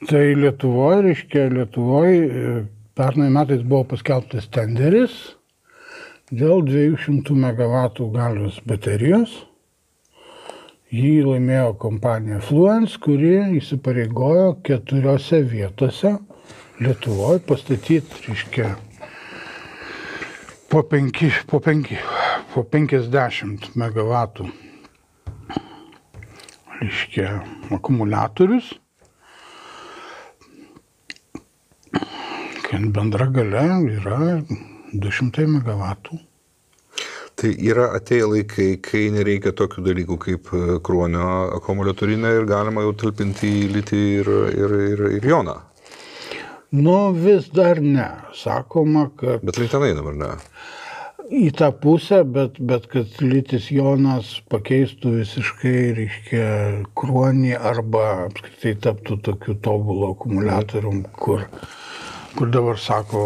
Tai Lietuvoje pernai metais buvo paskelbtas tenderis dėl 200 MW galios baterijos. Jį laimėjo kompanija Fluence, kuri įsipareigojo 4 vietose Lietuvoje pastatyti, po 50 MW akumuliatorius, kad bendra galia yra 200 MW. Tai yra atėję laikai, kai nereikia tokių dalykų kaip kruonio akumuliatorinė ir galima jau talpinti į litį ir joną. Vis dar ne. Sakoma, kad... Bet link tenai dabar ne. Į tą pusę, bet kad litis jonas pakeistų visiškai, kruonį arba apskritai taptų tokiu tobulu akumuliatorium, kur dabar sako,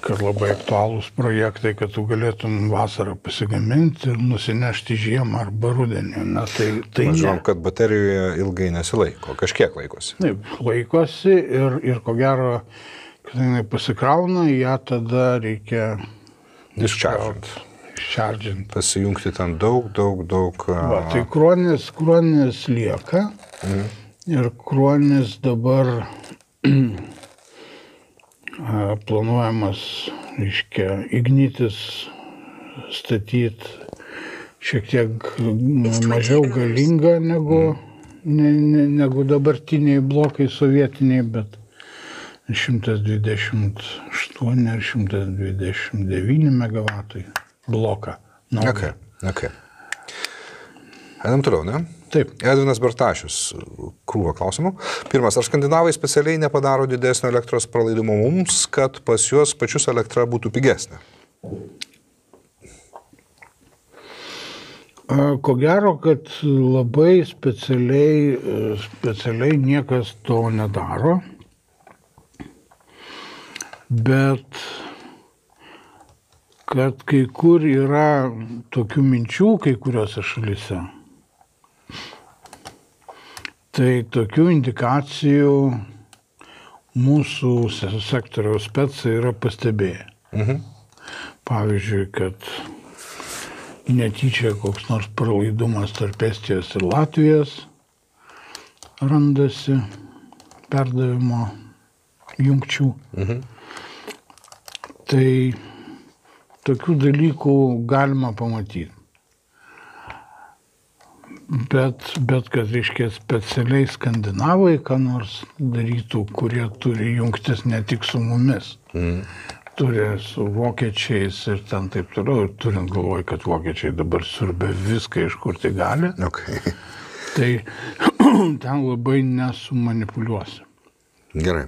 kad labai aktualūs projektai, kad tu galėtum vasarą pasigaminti ir nusinešti žiemą arba rudenį. Tai žinom, kad baterijoje ilgai nesilaiko, kažkiek laikosi. Taip, laikosi ir ko gero, kad jinai pasikrauna, ją tada reikia dischargint. Pasijungti ten daug. Tai kruonis lieka ir kruonis dabar planuojamas, Ignitis statyti šiek tiek mažiau galinga negu dabartiniai blokai sovietiniai, bet 128 ar 129 MW bloką. Okay. Einam toliau, ne? Taip. Edvinas Bartašius, krūva klausimų. Pirmas, ar skandinavai specialiai nepadaro didesnio elektros pralaidumo mums, kad pas juos pačius elektra būtų pigesnė? Ko gero, kad labai specialiai niekas to nedaro, bet kad kai kur yra tokių minčių kai kuriuose šalyse, tai tokių indikacijų mūsų sektoriaus specai yra pastebėję. Pavyzdžiui, kad netyčia koks nors pralaidumas tarp Estijos ir Latvijos randasi perdavimo jungčių. Tai tokių dalykų galima pamatyti. Bet kad, specialiai skandinavai, ką nors darytų, kurie turi jungtis ne tik su mumis, turi su vokiečiais ir ten taip toliau, ir turint galvoj, kad vokiečiai dabar siurbia viską, iš kur tai gali, tai ten labai nesumanipuliuosi. Gerai.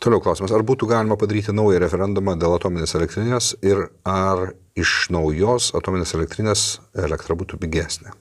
Toliau klausimas, ar būtų galima padaryti naują referendumą dėl atominės elektrinės ir ar iš naujos atominės elektrinės elektra būtų pigesnė?